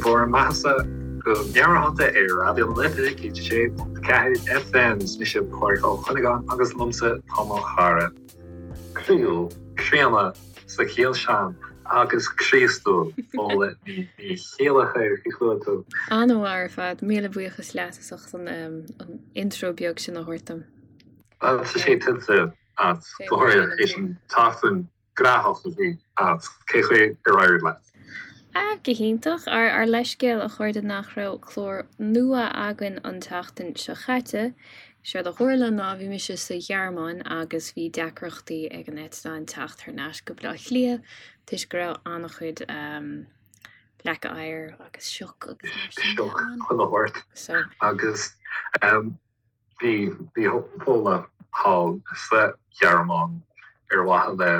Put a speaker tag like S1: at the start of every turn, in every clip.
S1: bhur mbeathasa go meabhairshláinte ar Raidió na Life 106.4 FM. Is mise Pádraig Ó Cuinneagáin agus liomsa tá mo chara croíúil, críonna sa chiall sin agus Críostúil, Fódhla Ní Chéilleachair. Cén chaoi a bhfuil tú?
S2: An-mhaith ar fad. Míle buíochas leat as ucht an intro beag sin a thabhairt dom.
S1: Tá sé tuillte agat, go háirithe théis an tseachtain ghnóthach a bhí agat. Cé chaoi ar éirigh leat?
S2: Ah, go hiontach. Ár ár leithscéal a chairde nach raibh clár nua againn an tseachtain seo chaite. Séard a tharla ná bhí mise sa Ghearmáin agus bhí deacrachtaí ag an eitleán teacht thar n-ais go Baile Átha Cliath toisc go raibh an-chuid leaca oighir agus sioc agus mar
S1: sin de ann. Sioc chuile shórt. So. Agus Bhí bhí Fódhla thall sa Ghearmáin ar mhaithe le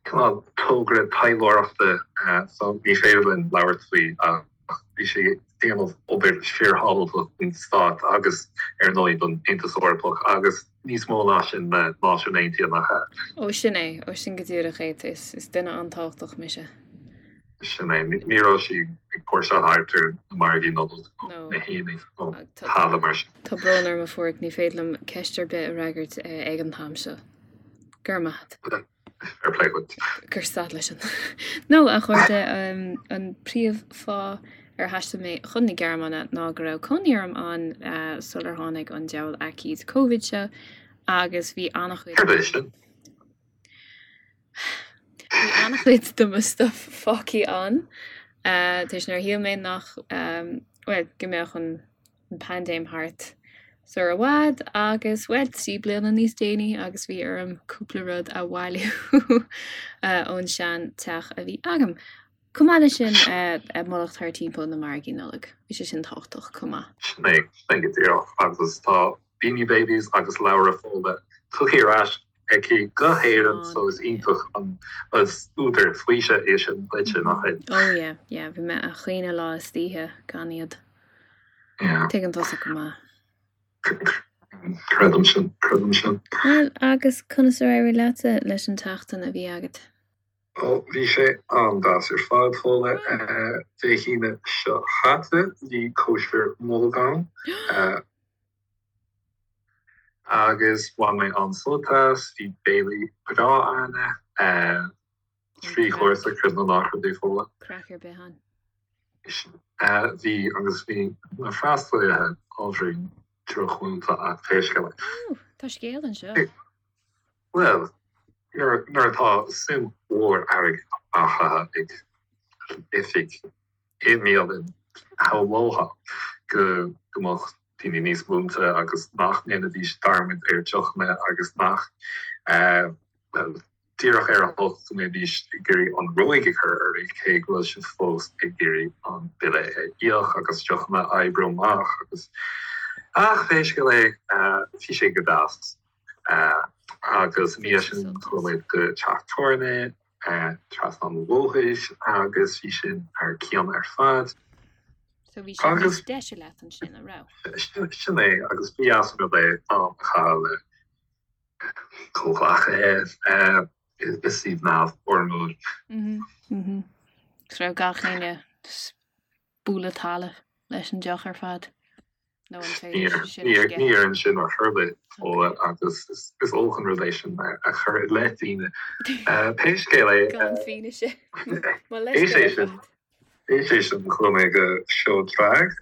S1: cineál togra taidhleoireachta so ní féidir linn labhairt faoi ach bhí sí ag déanamh obair fíorthábhachtach don stát agus ar ndóigh don Aontas Eorpach agus níos mó ná sin le Náisiúin Aontaithe nach ea?
S2: Ó sin é, ó sin go díreach é, is duine an-tábhachtach mise.
S1: Sin é. Ní raibh sí ag póirseáil thart ar na margaí Nollag nó na haonaigh nó tada mar sin.
S2: Tá brón orm a Phádraig, ní féidir liom ceist ar bith a fhreagairt ag an t-am seo. Go raibh maith
S1: agat. Fair play duit.
S2: Cuir stad leis an. No, a chairde, an príomh-fháth ar thaistil mé chun na Gearmáine ná go raibh cónaí orm ann sular tháinig an diabhal aicíd Covid seo agus bhí an-chuid.
S1: Céard é sin?
S2: Bhí an-chuid de mo stuff fágtha ann toisc nár shíl mé nach, bhuel, go mbeadh an paindéim thart sar i bhfad agus, bhuel, 3 bliana níos déanaí agus bhí orm cúpla rud a bhailiú ón sean teach a bhí agam. Chomh maith leis sin, mullacht thar timpeall na margaí Nollag, bhí sé sin tábhachtach chomh maith.
S1: Sin é, sin é go díreach agus tá Beanie Babies agus leabhra Fódhla tugtha ar ais aici go hÉirinn so is iontach an is údar faoisimh é sin duitse, nach
S2: ea? Oh yeah, yeah, bhí mé a' caoineadh lá is oíche gan iad.
S1: Yeah.
S2: Tuigeann tusa go maith.
S1: Creidim sin, creidim sin.
S2: Bhuel, agus conas ar éirigh leatsa leis an tseachtain a bhí agat?
S1: Ó, bhí sé an-deas ar fad, Fódhla. Dé hAoine seo chaite, bhí cóisir Nollag ann. Agus bhain mé an-sult as, bhí béile breá ann, 3 chúrsa, creid nó ná creid é, Fódhla.
S2: Craic ar bith ann.
S1: Bhí, agus bhí na freastalaithe ábhairín drochmhúinte ach pé scéal
S2: é. Ó, tá scéal anseo.
S1: Bhuel, nuair atá suim mhór airgid á chaitheamh ag oifig i mbialann, shamhlófá go mbeadh daoine níos múinte agus nach ndéanfaidís dearmad ar deochanna agus nach, bhuel, díreach ar a hocht go mbeidís ag iarraidh an ruaig a chur oraibh cé go bhfuil sibh fós ag iarraidh an bille a íoc agus deochanna a oibriú amach agus, ach pé scéal é, bhí sé go deas. Agus i ndiaidh sin chuaigh muid go teach tábhairne trasna an bhóthair agus bhí sin thar cionn ar fad.
S2: So bhí sé níos deise leat ansin, an raibh?
S1: Sin é, agus ba dheas an rud é am a chaitheamh le comhghleacaithe i suíomh neamhfhoirmiúil.
S2: Mhm. So raibh gach éinne bualadh talaimh leis an deoch ar fad? Nó an féidir
S1: sin a sceitheadh? Ní ar sin ar chor ar bith, Fódhla, agus is olc an rud é sin a chur i leith daoine. Pé scéal é.
S2: Gan fianaise. Mo leithscéal
S1: ar fad. Théis é sin chuaigh mé go seó drag,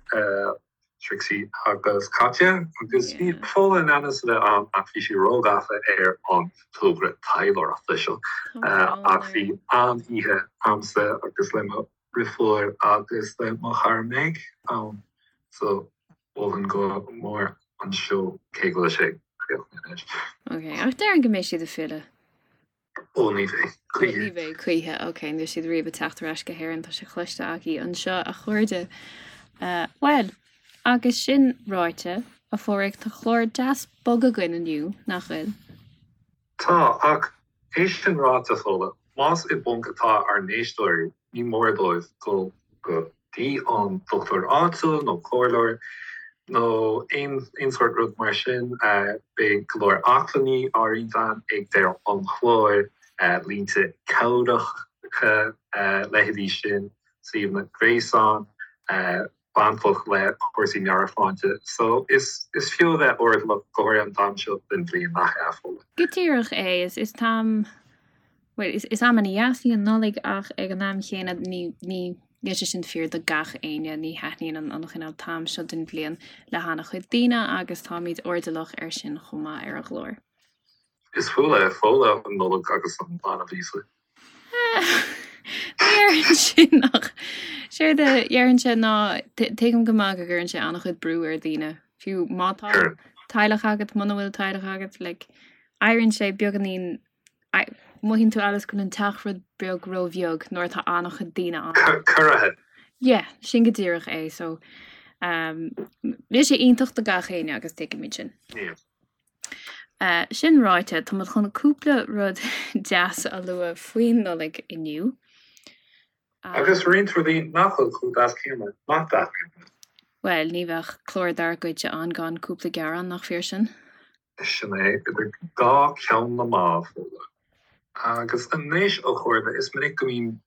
S1: Trixie agus Katya, agus bhí Fódhla in ainm is a bheith ann ach bhí sí róghafa ar an togra taidhleoireachta seo. Ach bhí an-oíche a'msa agus le mo dheirfiúr agus le mo chara Meg ann so mholfainn go mór an seó cé go bhfuil sé críochnaithe anois.
S2: Ok, ach déarfainn go mbeidh siad ag filleadh.
S1: Ó ní bheidh,
S2: choíche. Ní bheidh choíche, ok, níl siad riamh ag teacht ar ais go hÉirinn, tá sé cloiste agaibh anseo a chairde. Bhuel, agus sin ráite, a Phádraig, tá clár deas bog againn inniu, nach bhfuil?
S1: Tá, ach é sin ráite, Fódhla, más i bponc atá ár n-éisteoirí, ní mór dóibh dul go dtí an dochtúir áitiúil nó comhairleoir nó aon sórt rud mar sin. Beidh go leor acmhainní á roinnt againn ag deireadh an chláir, línte cabhracha, leithéidí sin. suíomhanna gréasáin bainteach le cúrsaí meabhairshláinte. So is is fiú a bheith airdeallach go háirithe an t-am seo den bhliain, nach ea, Fódhla?
S2: Go díreach é. Is is t-am, bhuel, is is am ana-dheas í an Nollaig ach ag an am chéanna ní ní níl sé sin fíor do gach éinne, ní thaitníonn an an chineál t-am seo den bhliain le han-chuid daoine agus táimid airdeallach air sin chomh maith ar an gclár.
S1: Is fuath le Fódhla an Nollaig agus an Banbh Íosa.
S2: Ní déarfainn sin ach séard a déarfainnse ná tuigim go maith go gcuireann sé an-chuid brú ar dhaoine, fiú má tá teaghlach agat, muna bhfuil teaghlach agat, like, éiríonn sé beagáinín, mothaíonn tú amhail is go bhfuil an teach rud beag róbheag nuair atá an-chuid daoine
S1: ann. Corraithe.
S2: Yeah, sin go díreach é, so um, níl sé iontach do gach éinne agus tuigimid sin.
S1: Yeah.
S2: Sin ráite, tá muid chun cúpla rud deas a lua faoin Nollaig inniu.
S1: Agus roinnt rudaí nach bhfuil chomh deas céanna, nach dtaitníonn
S2: linn. Bhuel, ní bheadh clár dár gcuidse ann gan cúpla gearán, nach fíor sin?
S1: Sin é, idir dhá cheann na meá, Fódhla. Agus anois, a chairde, is minic go mbíonn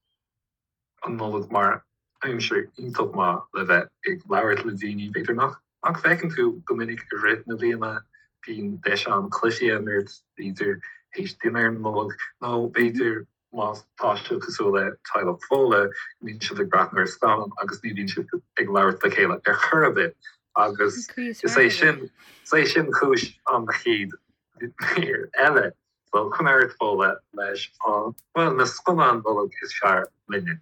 S1: an Nollaig mar aimsir iontach maith le bheith ag labhairt le daoine, b'fhéidir nach nach bhfeiceann tú go minic i rith na bliana. Bíonn deis ann cluichí a imirt, b'fhéidir théis dinnéar Nollag, nó b'fhéidir má tá sibh cosúil le teaghlach Fódhla, go mbíonn sibh ag breathnú ar scannán agus ní bhíonn sibh ag labhairt le chéile ar chor ar bith agus is é sin is é sin cúis an chéad mhír eile. So coinnigh ort Fódhla leis an, bhuel, na scannáin Nollag is fearr linne.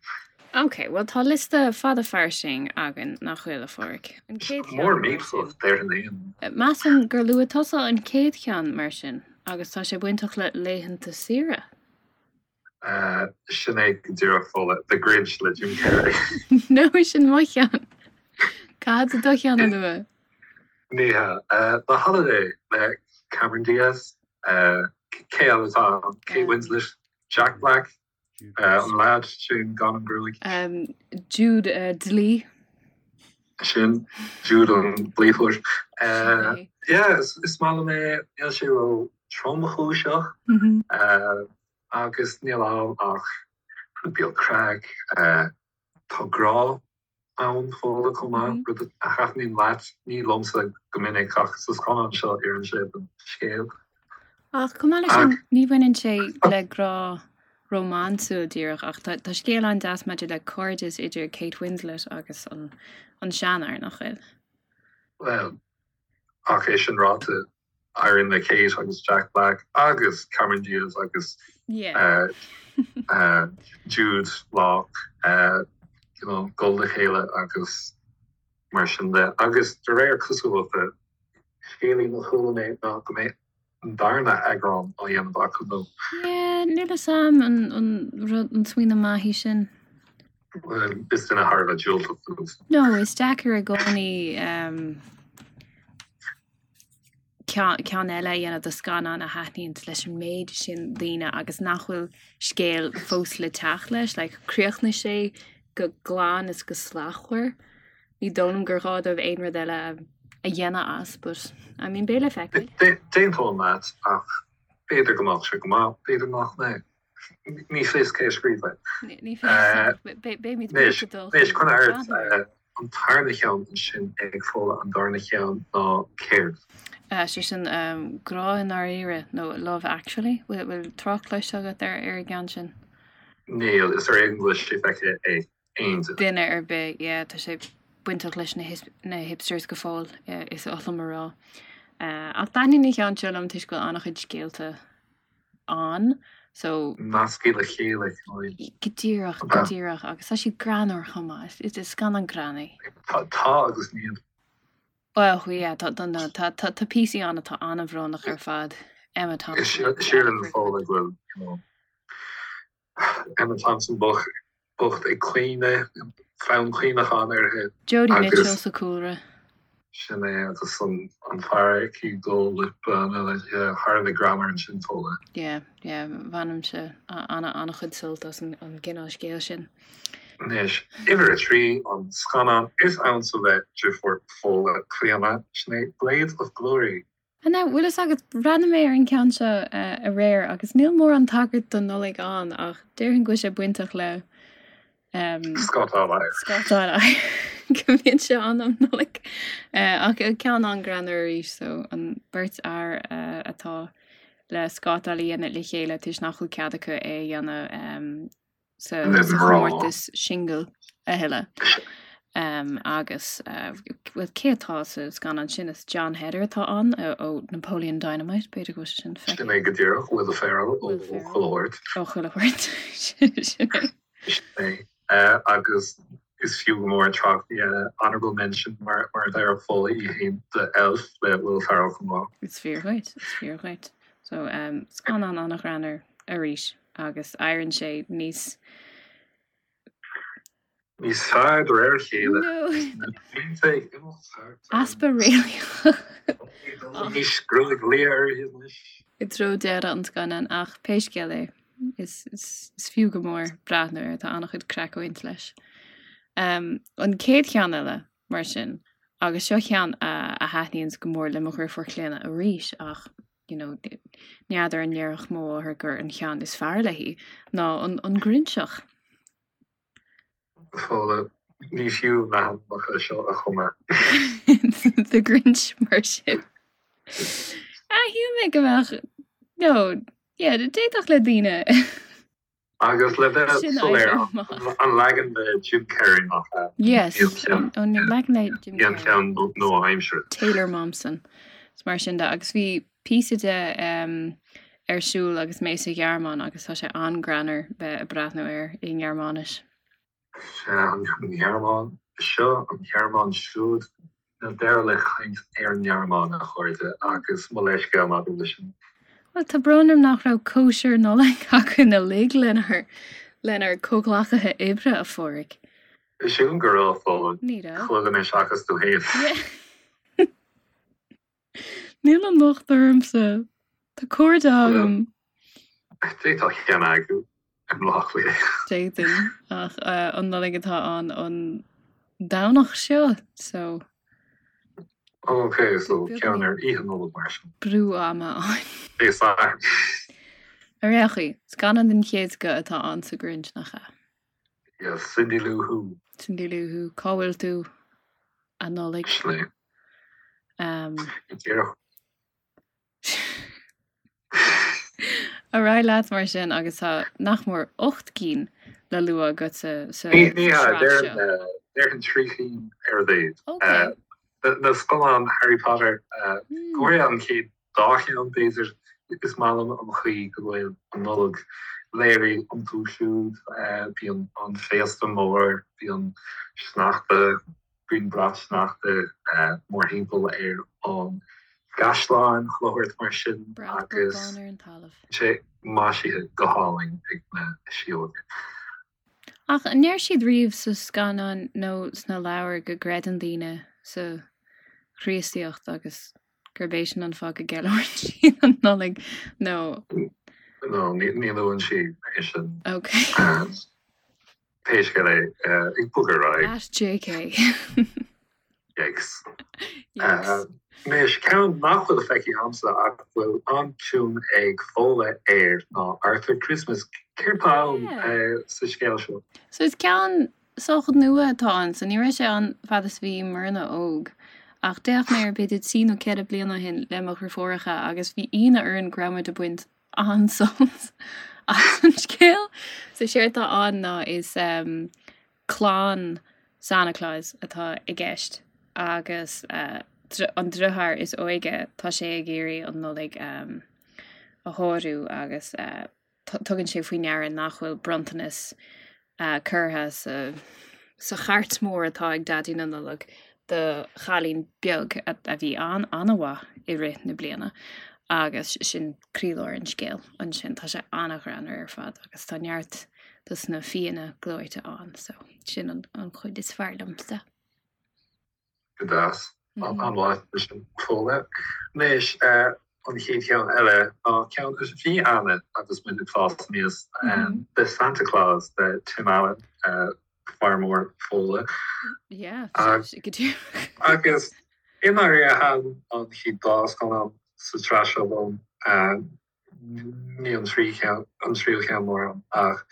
S2: Ok, bhuel tá liosta fada fairsing againn, nach bhfuil, a Pháraic?
S1: An chéad cheann, Mór mar sin.
S2: déarfainn é. Measaim gur luaigh tusa an chéad cheann, mar sin, agus tá sé bainteach le laethanta saoire.
S1: Sin é go díreach, Fódhla, The Grinch le Jim Carrey.
S2: No, sin mo cheann. Caithfidh tú do cheann a lua.
S1: Ní hea. The Holiday le Cameron Diaz. Cé eile atá ann? Kate Winslet, Jack Black, an leaid sin gan an ghruaig.
S2: Jude Dlí.
S1: Sin, Jude an Dlíthóir. Yeah, is maith liom é. Níl sé ró tromchúiseach agus níl ann ach rud beag craic. Tá grá ann Fódhla chomh maith, rud a thaitníonn leat, ní liomsa go minic ach sa scannán seo oireann sé don scéal.
S2: Ach chomh maith leis sin, ní bhaineann sé le grá rómánsúil díreach ach tá tá scéal an-deas maidir le cairdeas idir Kate Winslet agus an an seanfhear, nach bhfuil?
S1: Bhuel, ach é sin ráite, éiríonn le Kate agus Jack Black agus Cameron Diaz agus Jude Law you know dul le chéile agus mar sin de. Agus de réir cosúlachta, scéilín a chuala mé ná go mbeidh an darna eagrán á dhéanamh acu
S2: nó. Yeah, níl a fhios a'm an an rud an smaoineamh maith í sin.
S1: Bhuel, is duine thar a bheith diúltach
S2: tú. No, is deacair i gcónaí ceann eile a dhéanamh de scannán a thaitníonn leis an méid sin daoine agus nach bhfuil scéal fós le teacht leis. Like, chríochnaigh sé go glan is go slachtmhar. Ní dóigh liom gur ghá dóibh aon rud eile a dhéanamh as, but I mean, beidh le
S1: feiceáil. D'aontóinn leat ach b'fhéidir go mbeadh sé go maith, b'fhéidir nach mbeidh. Ní fios cé a scríobh
S2: é. Ní fios. Beimid
S1: Anois, anois, coinnigh ort an tarna cheann ansin ag Fódhla, an darna cheann ná céard?
S2: Sé sin Grá i nDáiríre nó Love Actually. Bhfuil trácht cloiste agat ar ar an gceann sin?
S1: Níl, is ar éigean go bhfuil sé feicthe ag aon
S2: duine. Duine ar bith, yeah, tá sé bainteach leis na hipsters go fóill, is oth liom a rá. Ach taitníonn an ceann seo liom toisc go bhfuil an-chuid scéalta ann
S1: so. Nasctha le chéile
S2: cineál. Go díreach, go díreach agus tá siad greannmhar chomh maith. Is scannán greann
S1: é. Tá agus níl.
S2: Well yeah, tá tá tá tá tá píosaí ann atá an-bhrónach ar fad. Emma
S1: Thompson. Sílim Fódhla go bhfuil you know Emma Thompson bocht ag caoineadh, fonn caoineacháin uirthi.
S2: Jodie Mitchell sa chúlra.
S1: Sin é agus an fear aici ag dul le bean eile, yeah, thar a bheith greannmhar ansin
S2: Fódhla. Yeah, yeah, bhainimse an-chuid sult as an gcineál scéil sin.
S1: Anois, uimhir 3, an scannán is ansa le deirfiúr Fódhla, Clíona, sin é Blades of Glory.
S2: Now, bhfuil fhios agat, bhreathnaigh mé ar an gceann seo aréir agus níl mórán tagairt don Nollaig ann ach déarfainn go bhfuil sé bainteach le.
S1: Scátáil
S2: air. Scátáil air. Go mbíonn sé ann um Nollaig. Ach ceann an-ghreannmhar arís so an beirt fhear atá le scátáil a dhéanamh le chéile toisc nach bhfuil cead acu é a dhéanamh sa chomórtas singil a thuilleadh. Agus bhuel cé atá sa scannán sin? Is Jon Heder atá ann ó Napoleon Dynamite, b'fhéidir go bhfuil sé sin
S1: feicthe. Sin é go díreach, Will Ferrell ó Chuile Shórt.
S2: Ó Chuile Shórt, sin
S1: é. Sin é. Agus is fiú go mór trácht a dhéanamh, honourable mention mar a déarfadh Fódhla í féin, do Elf le Will Ferrell chomh maith.
S2: Is fíor dhuit, is fíor dhuit. So, scannán an-ghreannmhar arís agus éiríonn sé níos.
S1: Níos fearr de réir a chéile.
S2: Easpa réalaíoch.
S1: Anois gruaig liath uirthi anois.
S2: I dtreo deireadh an scannáin ach pé scéal é, is fiú go mór breathnú air, tá an-chuid craic ag baint leis. An chéad cheann eile, mar sin, agus seo ceann a thaitníonns go mór le mo dheirfiúr Clíona arís ach you know, n'fheadar an ndéarfadh mo mháthair gur an cheann is fearr léi, ná an Grinseach.
S1: Fódhla, ní fiú na hainmneacha seo a chumadh.
S2: The Grinch mar sin. Ah, shíl mé go mbeadh, no, yeah, d'fhéadfadh le daoine.
S1: Agus le bheith soiléir, an leagan le Jim Carrey nach
S2: ea? Yes, an leagan le Jim
S1: Carrey. An ceann nua-aimseartha.
S2: Taylor Momsen. Is mar sin de. Agus bhí píosa de ar siúl agus mé sa Ghearmáin agus tá sé an-greannmhar bheith ag breathnú air i nGearmáinis.
S1: Sea, an Ghearmáin seo, an Ghearmáin siúd. Níl deireadh le caint ar an nGearmáin, a chairde, agus mo leithscéal maidir leis sin.
S2: Bhuel, tá brón orm nach raibh cóisir Nollag againn uilig lenár, lenár comhghleacaithe oibre, a Phádraig.
S1: Sílim go raibh, Fódhla.
S2: Ní raibh.
S1: Chuile dhuine seachas tú
S2: féin. Níl an locht ormsa. Tá cairde agam.
S1: D'fhéadfá ceann a eagrú i mBaile Átha Cliath.
S2: D'fhéadfainn, ach an Nollaig atá ann an Domhnach seo, so.
S1: Ok, so ceann ar Oíche Nollag mar sin.
S2: Brú ama ann.
S1: Dé Sathairn.
S2: Ar aon chaoi, scannán den chéad scoth atá ann sa Grinch, nach ea?
S1: Yes, Cindy Lou Who.
S2: Cindy Lou Who, cá bhfuil tú, a Nollaig?
S1: Sin é. Díreach.
S2: Ar aghaidh leat mar sin agus tá nach mór 8 gcinn le lua agat sa sa Ní
S1: ní hea, sraith seo. déarfainn déarfainn 3 chinn ar a mhéad. Ok. Na scannáin Harry Potter, go háirithe an chéad dá cheann b'fhéidir, is maith liom an chaoi go bhfuil an Nollaig léirithe iontu siúd. Bíonn an féasta mór, bíonn sneachta, bíonn brat sneachta mórthimpeall ar an gcaisleán, chuile shórt mar sin
S2: Brat agus bán ar an talamh.
S1: sé maisithe go hálainn ag na síóga.
S2: Ach an ndeir siad riamh sa scannán nó sna leabhair go gcreideann daoine sa Chríostaíocht agus gurb é sin an fáth go gceiliúrann siad an Nollaig nó.
S1: No, ní luann sí é sin.
S2: Ok.
S1: Pé scéal é, ag bogadh ar aghaidh.
S2: At JK.
S1: Yikes. Yikes. Anois, ceann nach bhfuil feicthe agamsa ach bhfuil an-suim ag Fódhla air ná Arthur Christmas. Céard tá ann sa scéal seo?
S2: So is ceann sách nua atá ann, so ní raibh sé ann fad is bhí muidne óg. Ach d'fhéach mé air b'fhéidir trí nó ceithre bliana ó shin le mo dheirfiúracha agus bhí ionadh orainn go raibh muid ag baint an-sult as an scéal. So séard atá ann ná is um, clann Santa Claus atá i gceist agus uh, an deartháir is óige tá sé ag iarraidh an Nollaig um, a shárú agus uh, tugann sé faoi ndeara nach bhfuil bronntanas curtha sa chairt mhór atá ag Daidí na Nollag do chailín beag a bhí an-an-mhaith i rith na bliana agus sin croílár an scéil ansin. Tá sé an-ghreannmhar ar fad agus tá neart dos na fianna gleoite ann so sin an chuid is fearr liomsa.
S1: Go deas. An-mhaith sin Fódhla. Anois, an chéad cheann eile ná ceann a bhí ann agus muid ag fás aníos, The Santa Clause le Tim Allen, fear mór Fódhla.
S2: Yeah, go
S1: díreach. Agus i ndáiríre thaitin an chéad dá scannán sa tsraith seo liom, ní an tríú ceann mórán ach.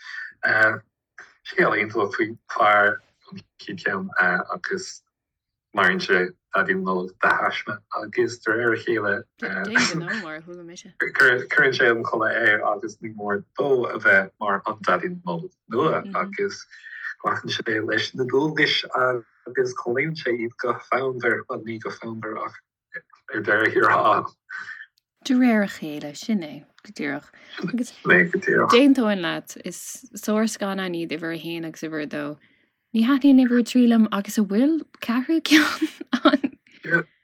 S1: Scéal iontach faoi fear an chéad cheann agus maraíonn sé Daidí na Nollag de thaisme agus de réir a chéile cuireann sé an culaith air agus ní mór dó a bheith mar an Daidí na Nollag nua agus glacann sé leis na dualgais agus comhlíonann sé iad go fonnmhar, bhuel ní go fonnmhar ach ar deireadh thiar thall.
S2: De réir a chéile, sin é, go díreach. Agus d'aontóinn leat, is sárscannáin iad uimhir a haon agus uimhir a dó. Ní thaitníonn uimhir a trí liom agus an bhfuil ceathrú ceann
S1: ann?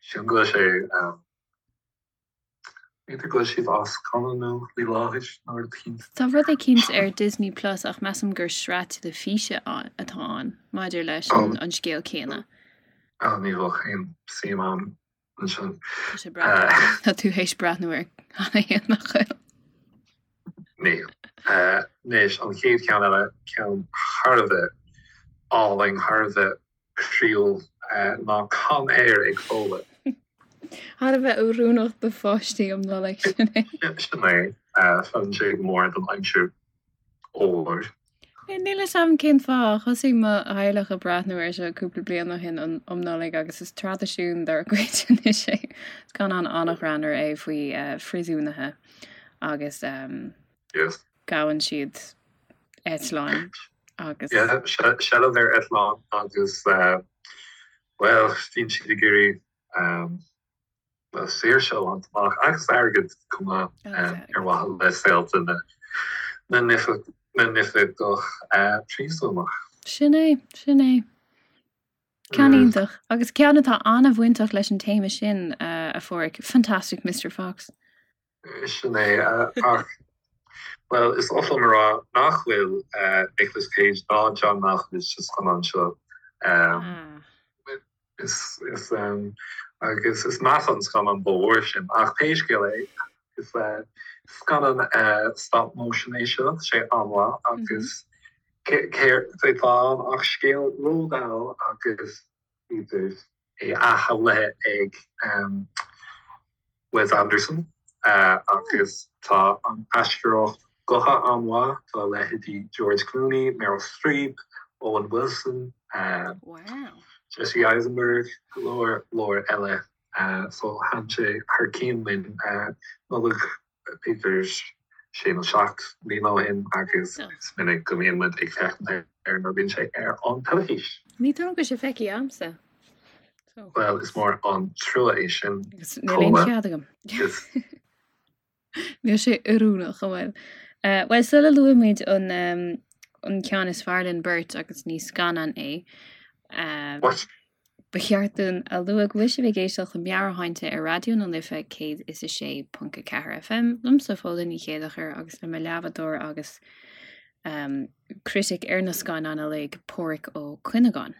S1: Sílim go bhfuil sé, b'fhéidir go bhfuil siad á scannánú faoi láthair nó rud
S2: eicínt. Tá rud eicínt ar Disney Plus ach measaim gur sraith teilifíse atá ann maidir leis an scéal céanna.
S1: Ní bheadh aon suim a'm ansin.
S2: Tá sé breá. Tá tú théis breathnú air cheana féin, nach bhfuil?
S1: Níl. Anois, an chéad cheann eile, ceann thar a bheith álainn, thar a bheith croíúil, ná Con Air ag Fódhla.
S2: Thar a bheith oiriúnach do pháistí um Nollaig, sin
S1: é. Sin é. Feileann sé go mór don aimsir fhuar.
S2: Níl a fhios a'm cén fáth. Thosaigh mo theaghlach ag breathnú air seo cúpla bliain ó shin um Nollaig agus is traidisiún dár gcuid anois é. Scannán an-ghreannmhar é faoi phríosúnaithe agus gabhann siad eitleáin agus.
S1: Yeah, seilbh ar eitleán agus bhuel, bíonn siad ag iarraidh saoirse a bhaint amach agus airgead chomh maith ar mhaithe le saolta na n-oifigeach príosúnach.
S2: Sin é, sin é. Ceann iontach. Agus ceann atá an-bhainteach leis an téama sin, a Pháraic, Fantastic Mister Fox.
S1: Sin é, ach, bhuel, is oth liom a rá nach bhfuil Nicolas Cage ná John Malkovich sa scannán seo. Is, is, agus is measa an scannán dá bharr sin. Ach pé scéal é, is scannán stop motion é seo, tá sé an-mhaith agus céard atá ann ach scéal Roald Dahl agus idir é athshamhlaithe ag Wes Anderson agus tá an aisteoireacht gutha an-mhaith, tá leithéidí George Clooney, Meryl Streep, Owen Wilson, Jesse Eisenberg, go leor leor eile. So thaitin sé thar cionn linn Nollaig b'fhéidir sé nó 7 mbliana ó shin agus is minic go mbíonn muid ag féachaint air nuair a bhíonn sé ar an teilifís.
S2: Ní dóigh liom go bhfuil sé feicthe a'msa.
S1: Bhuel, is mór an trua é sin.
S2: Agus níl aon chead agam. Níl sé oiriúnach, an bhfuil? Bhuel, sula luaimid an an ceann is fearr linn beirt agus ní scannán é,
S1: What?
S2: ba cheart dúinn a lua go bhfuil sibh ag éisteacht le Meabhairshláinte ar Raidió na Life 106.4 FM, liomsa Fódhla Ní Chéileachair agus le mo leathbhádóir agus critic ar na scannáin uilig, Páraic Ó Cuinneagáin.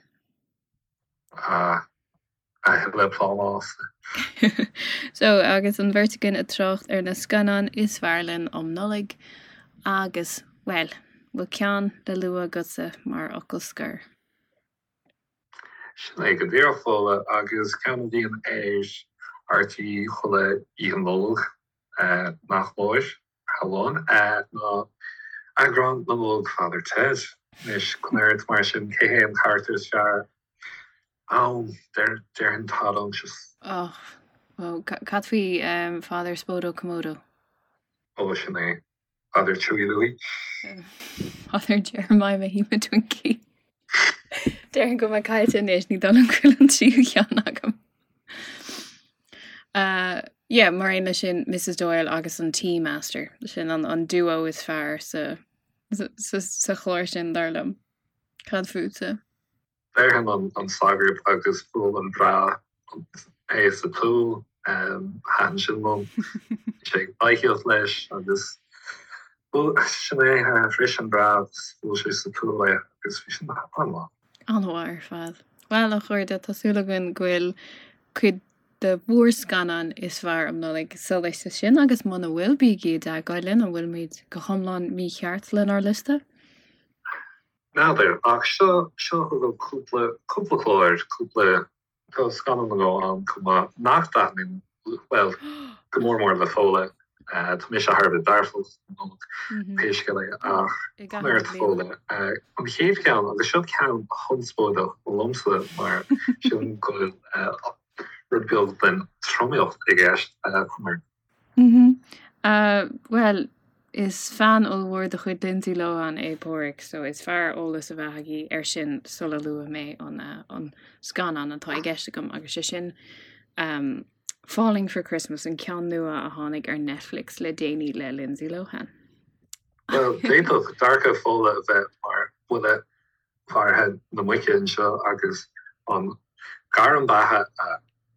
S1: Ah, a thuilleadh plámás.
S2: So, agus an bheirt againn ag trácht ar na scannáin is fearr linn um Nollaig agus, bhuel, bhfuil ceann le lua agatsa mar fhocal scoir?
S1: Sin é go díreach, Fódhla, agus ceann a bhíonn ar RTÉ chuile Oíche Nollag, nach mór. Amháin ná eagrán na Nollag Father Ted. Anois, coinnigh ort mar sin, cé hé an carachtar is fearr ann? Déarfainn Todd Unctious.
S2: Och, ó, cad faoi Father Spodo Komodo?
S1: Ó, sin é. Father Chewy Louie.
S2: Father Jeremiah Mahima Twinkie. Déarfainn go bhfuil mé caillte anois, ní dóigh liom go bhfuil an tríú ceann agam. Uh, yeah, mar aon leis sin Mrs Doyle agus an Tea Master, sin an, an duo is fearr sa, sa, sa, sa chlár sin dar liom. Cad fútsa?
S1: Déarfainn an, an sagart agus bhuail an breá é sa tsúil, um, thaitin sin liom. Sé ag baithíocht leis agus bhuail, sin é, uh, bhris an breá agus bhuail sé sa tsúil é agus bhí sin an-mhaith.
S2: An-mhaith ar fad. Bhuel, a chairde, tá súil againn go bhfuil cuid de bhur scannáin is fearr um Nollaig sa liosta sin agus muna bhfuil, bígí i dteagmháil linn, an bhfuilimid go hiomlán mícheart lenár liosta?
S1: N'fheadar, ach seo, seo chugaibh cúpla, cúpla clár, cúpla, tá scannán nó dhó ann chomh maith nach dtaitníonn, bhuel, go mór mór le Fódhla. Tá mise thar a bheith dearfach don Nollaig, pé scéal é, ach conair Fódhla. An chéad cheann, agus seo ceann conspóideach liomsa mar sílim go bhfuil rud beag den tromaíocht i gceist, conair.
S2: Bhuel, is fan ollmhór de chuid Lindsay Lohan é Páraic, so is fearr eolas a bheith agaibh air sin sula luafaidh mé an scannán atá i gceist agam, agus sé sin Falling for Christmas, an ceann nua a tháinig ar Netflix le déanaí le Lindsay Lohan.
S1: Bhuel, d'fhéadfadh dearcadh Fódhla a bheith mar bhuille mharaithe na muice anseo agus an gairm beatha a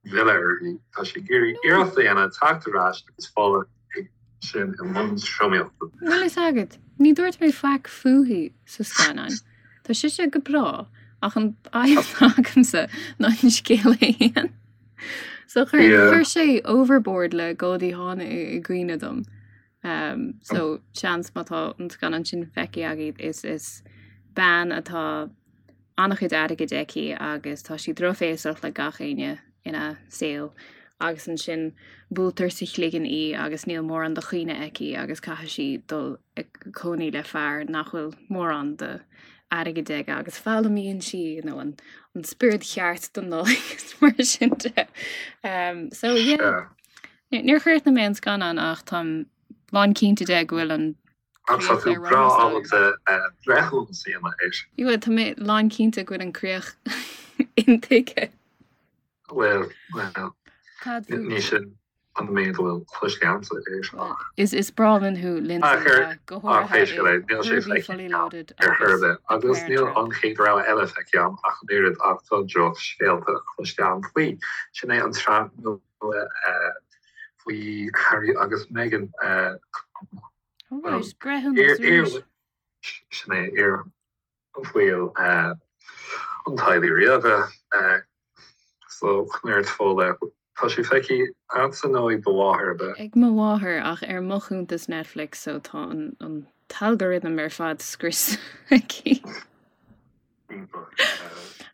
S1: mhilleadh uirthi. Tá sí ag iarraidh iarracht a dhéanamh teacht ar ais agus Fódhla ag sin i mbun tromaíochta.
S2: Bhfuil fhios agat, ní dúirt mé faic fúithi sa scannán. Tá sise go breá, ach an fhadhb atá agamsa ná an scéal é fhéin. So chuir sé overboard le Goldie Hawn i gcuimhne dom. Um, so seans má tá an scannán sin feicthe agaibh is is bean atá an-chuid airgid aici agus tá sí drochbhéasach le gach éinne ina saol agus ansin buailtear sa chloigeann í agus níl mórán de chuimhne aici agus caithfidh sí dul ag cónaí le fear nach bhfuil mórán de airgead aige agus foghlaimíonn sí you know, an, an spiorad cheart don Nollaig is mar sin de. Um, so yeah. Níor chríochnaigh mé an scannán ach táim lán cinnte de go bhfuil an
S1: Ach tá tú breá ábalta breithiúnas a dhéanamh air.
S2: Bhuel, tá mé lán cinnte go bhfuil an críoch intuigthe.
S1: Bhuel, bhuel, ní sin an méid a bhfuil cloiste agamsa air
S2: ach. Is is breá linn thú, Lindsay,
S1: go háirithe i Herbie Fully Loaded ar chor ar bith, agus níl an chéad rogha eile feicthe agam ach an oiread ach tá drochscéalta cloiste agam faoi. Sin é an tsraith nua faoi Harry agus Meghan.
S2: Alright, breithiúnas arís.
S1: Sin é, iar-bhaill an teaghlaigh ríoga. So, Conair Fódhla, tá sé feicthe agatsa nó ag do mháthair, ab
S2: ea? Ag mo mháthair, ach ar mo chuntas Netflix, so tá an t-algorithm ar fad scriosta aici.
S1: Iontach.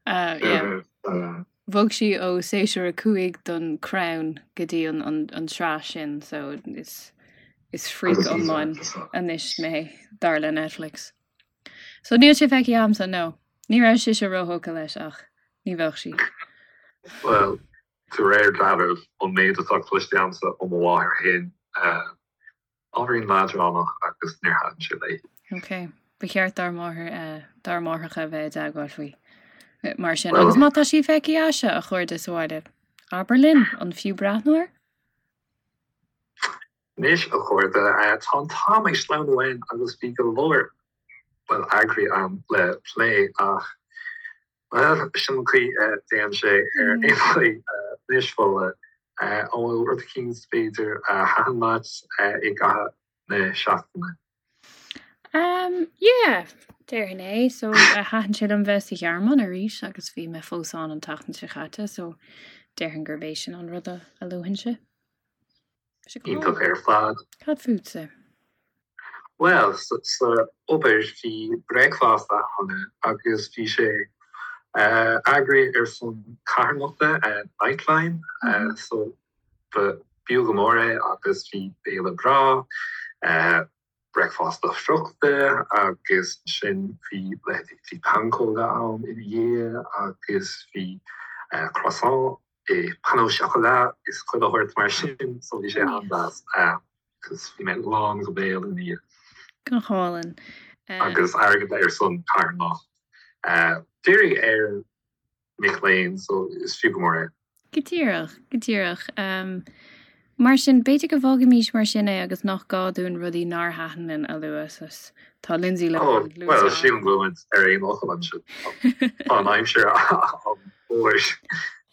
S2: Yeah. Bhog sí ó séasúr 5 den Crown go dtí an tsraith sin so is is freak iomlán anois mé dar le Netflix. So níl sé feicthe agamsa, no. Ní raibh sise róthógtha leis ach ní bheadh sí.
S1: Bhuel, de réir dealraimh, ón méid atá cloiste agamsa ó mo mháthair féin, Ábhairín leadránach agus níor thaitin sé léi.
S2: Ok. Ba cheart dár máthair, dár máithreacha a bheith i dteagmháil faoi mar sin. Agus má tá sí feicthe agaibhse, a chairde sa bhaile, abair linn, an fiú breathnú air?
S1: Anois, a chairde, tá an t-am ag sleamhnú uainn agus bhí go leor, bhuel, eagraí ann le plé ach Bhuel, sin an chaoi a dtéann sé ar aon chaoi. Anois, Fódhla, an bhfuil rud eicínt, b'fhéidir, a thaitin leat i gcaitheamh na seachtaine?
S2: Um, yeah, déarfainn é. So, thaitin sé liom bheith sa Ghearmáin arís agus bhí mé fós ann an tseachtain seo chaite, so déarfainn gurb é sin an rud a luafainnse.
S1: Iontach ar fad.
S2: Cad fútsa?
S1: Bhuel, sa obair bhí bricfeasta ann agus bhí sé eagraithe ar son carthanachta Nightline so ba b'fhiú go mór é agus bhí béile breá, bricfeasta friochta agus ansin bhí leithéidí bhí pancóga ann ina dhiaidh agus bhí croissant i pain au chocolat is chuile shórt mar sin so bhí sé an-deas agus bhí mé lán go béal ina dhiaidh.
S2: Go hálainn.
S1: Agus airgead ar son carthanacht. Dírithe ar mic léinn so is fiú go mór é.
S2: Go díreach, go díreach. Mar sin, b'fhéidir go bhfágfaimís mar sin é agus nach gá dúinn rudaí nár thaitin linn a lua. Tá Lindsay
S1: Lohan luaite. Bhuel, sílim go bhfuil muid ar aon fhocal ansin. Tá an aimsir an-mhór.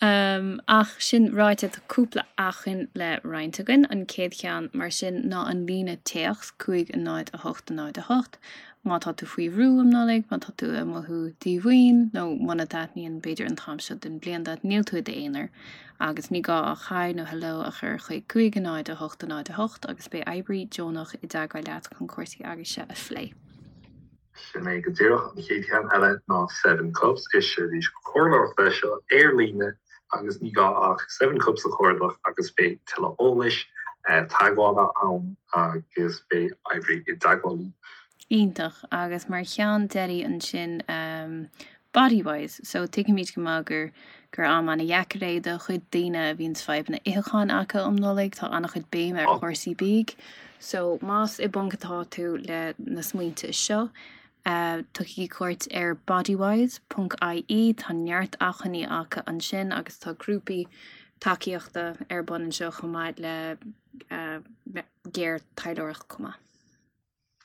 S2: Ach sin ráite, tá cúpla acmhainn le roinnt againn. An chéad cheann, mar sin, ná an líne téacs 5 0 8 0 8. Má tá tú faoi bhrú um Nollaig, má tá tú ag mothú díomhaoin, nó muna dtaitníonn, b'fhéidir, an t-am seo den bhliain duit, níl tú i d'aonar. Agus ní gá ach Hi nó Hello a chur chuig 5 0 8 0 8 agus beidh oibrí deonach i dteagmháil leat chun cúrsaí agaibhse a phlé.
S1: Sin é go díreach. An chéad cheann eile ná Seven Cups. Is seirbhís comhairleoireachta é seo ar líne agus ní gá ach Seven Cups a chuardach agus beidh tuilleadh eolais. teagmhála ann agus beidh oibrí i dteagmháil
S2: libh. Iontach. Agus mar cheann deiridh ansin, Bodywhys. So tuigimid go maith gur gur am ana-dheacair é do chuid daoine a bhíonns fadhbanna itheacháin acu um Nollaig. Tá ana-chuid béime ar chúrsaí bídh. So más i bponc atá tú le na smaointe seo, tugaigí cuairt ar bodywhys ponc ie. Tá neart acmhainní acu ansin agus tá grúpaí tacaíochta ar bun anseo chomh maith le géarthaidhleoireacht chomh maith.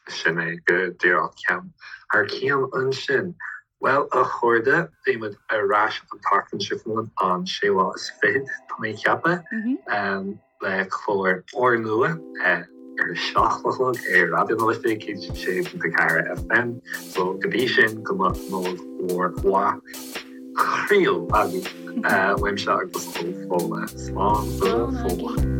S1: Sin é go díreach ceann thar cionn ansin. Bhuel, a chairde, beidh muid ar ais an tseachtain seo chugainn, an séú lá is fichead, tá mé ag ceapadh, le clár úrnua ar a 7 a chlog ar Raidió na Life 106.4 FM. So, go dtí sin, go mbeadh Nollaig mhór mhaith chroíúil agaibh uaimse agus ó Fódhla. Slán go fóill.